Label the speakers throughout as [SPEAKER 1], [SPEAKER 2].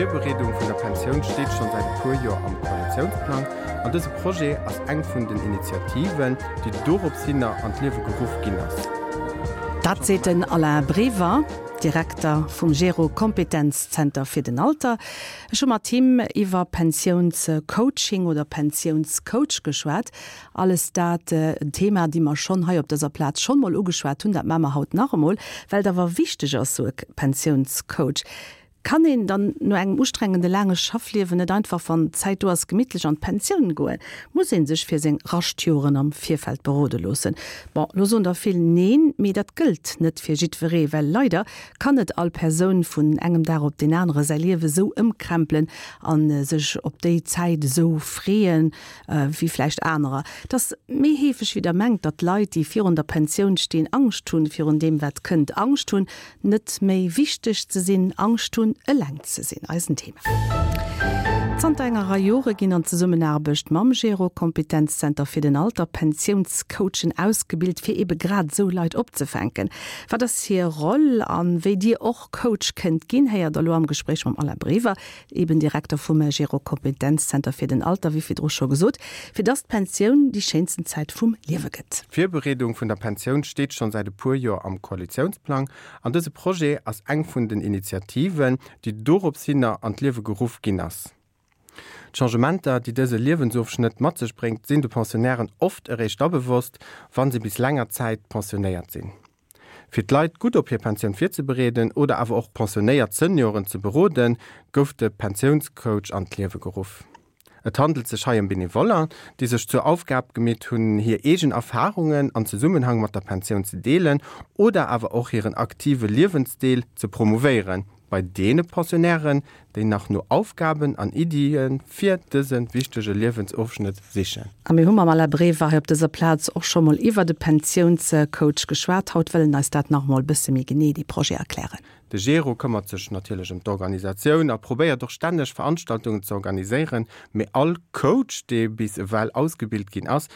[SPEAKER 1] D'Virbereedung vun der Pensioun steet schonn säit e puer Joer am Koalitiounsplang an dëse Projet ass eng vun den Initiativen, déi dorops hinner an d'Liewe geruff ginn ass.
[SPEAKER 2] Dat seet den Alain Brever, Direkter vum Gero Kompetenzzenter fir den Alter. Ech hu mat him iwwer Pensiounscoaching oder Pensiounscoach geschwat. Alles dat en Thema, déi mer schonn hei op dëser Plaz schonn mol ugeschwat hunn. Dat maache mer haut nach emol, well et awer wichteg ass, sou e Pensiounscoach. Kann een dann no engem ustrengende laange Schaffliewen net einfach, wann d'Zäit do ass, gemittlech an d'Pensioun goen? Muss ee sech fir seng Raschtjoren am Virfeld berode loossen? Bon, lo soen der vill Neen, mee dat gëllt net fir jiddweree, well leider kann net all Persoun vun engem Dag op deen anere säi Liewe sou ëmkrempelen a sech op déi Zäit esou freeën, wéi vläicht anerer. Et ass méi heefeg wéi der mengt, datt Leit, déi virun der Pensioun stinn, Angscht hunn virun deem wat kënnt, Angscht hunn, Net méi wichteg ze sinn, Angscht hunn, eleng ze sinn, eisen Thema. Zanter enger Rei Jore ginn an Zesummenaarbecht mam Gero Kompetenzzenter fir den Alter Pensiounscoachen ausgebilt, fir ebe grad esou Leit opzefänken. Wat ass hir Roll a wéi Dir och Coach kënnt ginn, héiert der elo am Gespréich mam Alain Brever, eben Direkter vum Gero Kompetenzzenter fir den Alter, wéi virdru scho gesot, fir dass d'Pensioun déi schéinsten Zäit vum Liewe gëtt.
[SPEAKER 1] D'Virbereedung vun der Pensioun steet schonn säit e puer Joer am Koalitiounsplang an dëse Projet ass eng vun den Initiativen, déi dorops hinner an d'Liewe geruff ginn ass. D'Changementer, déi dëse Liewensofschnëtt mat sech bréngt, sinn de Pensionnairen oft eréischt da bewosst, wa se bis länger Zäit pensionéiert sinn. Fir d'Leit gutt op hir Pensioun virzebereeden oder awer och pensionéiert Senioren ze beroden, gouf de Pensiounscoach an d'Liewe geruff. Et handelt sech hei ëm Benevoller, déi sech zur Aufgab gemeet hunn, hir eegen Erfarungen an Zesummenhang mat der Pensioun ze deelen oder awer och hiren aktive Liewensdeel ze promouvéieren. Bei deene Pensionnairen, déi nach no Aufgaben an Iddie fir dëse wichtege Liewensofschnëtt sichen.
[SPEAKER 2] A mir hu mam Alain Brever hei op dëser Plaz och scho mol iwwert e Pensiounscoach geschwat. Haut wëll en eis dat nach emol e bësse méi genee, dee Projet, erklären.
[SPEAKER 1] De Gero këmmert sech natierlech ëm d'Organisatioun a probéiert och stänneg Veranstaltungen ze organiséieren. Mee all Coach, dee bis ewell ausgebilt ginn ass,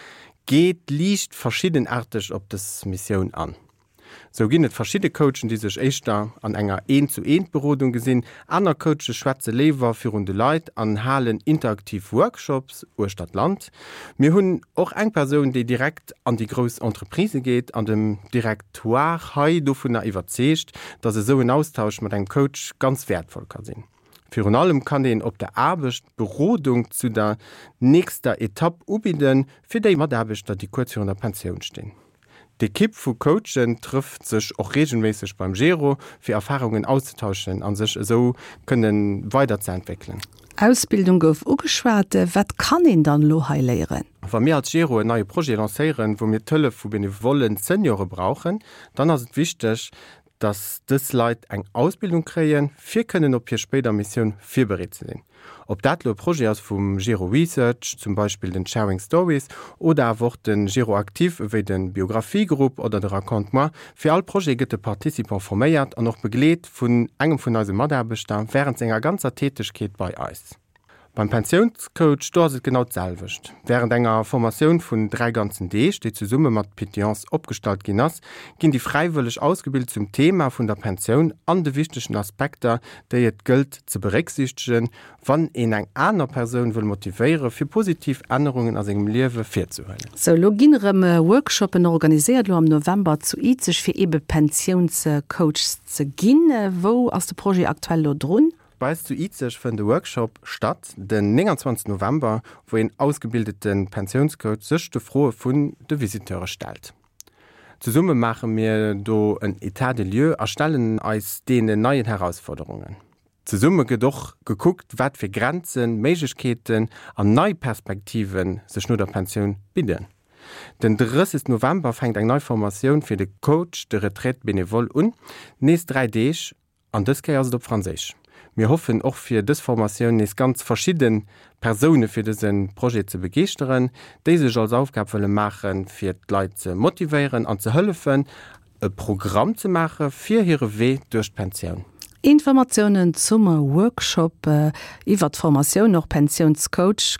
[SPEAKER 1] geet liicht verschiddenaarteg op dës Missioun an. Sou ginn et verschidde Coachen, déi sech éischter an enger Eent-zu-Eent-Berodung gesinn. Aner Coache schwätze léiwer virun de Leit an halen interaktiv Workshops uechter d'Land. Mir hunn och eng Persoun, déi direkt an déi grouss Entreprisë geet an dem Directoire hei dovunner iwwerzeegt, dass esou en Austausch mat engem Coach ganz wäertvoll ka sinn. Virun allem kann een op der Aarbecht Berodung zu der nächster Etapp ubidden, fir déi Mataarbechter, déi kuerz virun der Pensioun stinn. D'Ekipp vu Coachen trëfft sech och reegelméisseg beim Gero, fir Erfarungen auszetauschen a sech esou kënne weiderzeentwéckelen.
[SPEAKER 2] Ausbildung gouf ugeschwat. Wat kann een dann elo hei léieren?
[SPEAKER 1] Wa mir als Gero en neie Projet lancéieren, wou mir d'Hëllef vu benevollen Seniore brauchen, dann ass et wichteg, dass dës Leit eng Ausbildung kréien, fir kënnen op hir spéider Missioun virbereet ze sinn. Ob dat lo e Projet ass vum Gero Research, zum Beispill den Sharing Stories, oder awer och de Gero Actif ewéi de Biographie-Grupp oder de Raconte-moi, fir all Projet gëtt de Participant forméiert an och begleet vun engem vun eise Mataarbechter wärend senger ganzer Tätegkeet bei eis. Beim Pensiounscoach, do ass et genau d'selwecht. Wärend enger Formatioun vun 3 ganzen Deeg, déi zesumme mat Pétillance opgestallt ginn ass, ginn déi Fräiwëlleg ausgebilt zum Thema vun der Pensioun an de wichtegen Aspekter, déi et gëllt ze berécksiichtegen, wann een eng aner Persoun wëll motivéiere fir positiv Ännerungen a sengem Liewe virzehuelen.
[SPEAKER 2] Sou, elo ginn erëm Workshoppen organiséiert, elo am November zu Izeg, fir eebe Pensiounscoachs ze ginn. Wou ass de Projet aktuell elo drun?
[SPEAKER 1] Bei eis zu Izeg fënnt e Workshop statt den 29 November, wou een ausgebildete Pensiounscoach sech de Froe vun de Visiteure stellt. Zesumme maache mir do en Etat des lieux a stellen eis deenen neien Herausforderungen. Zesumme gëtt och gekuckt, wat fir Grenzen, Méiglechkeeten an nei Perspektive sech no der Pensioun bidden. Den 30 November fänkt eng nei Formatioun fir de Coach de retraite bénévole un, nees 3 Deeg An dës Kéier ass et op Franséisch. Mir hoffen och fir dës Formatioun nees ganz verschidde Persoune fir dëse Projet ze begeeschteren, déi sech als Aufgab wëlle maachen, fir d'Leit ze motivéieren an ze hëllefen, e Programm ze maache fir hire Wee duerch d'Pensioun.
[SPEAKER 2] Informatiounen zum Workshop iwwert d'Formatioun, och Pensiounscoach.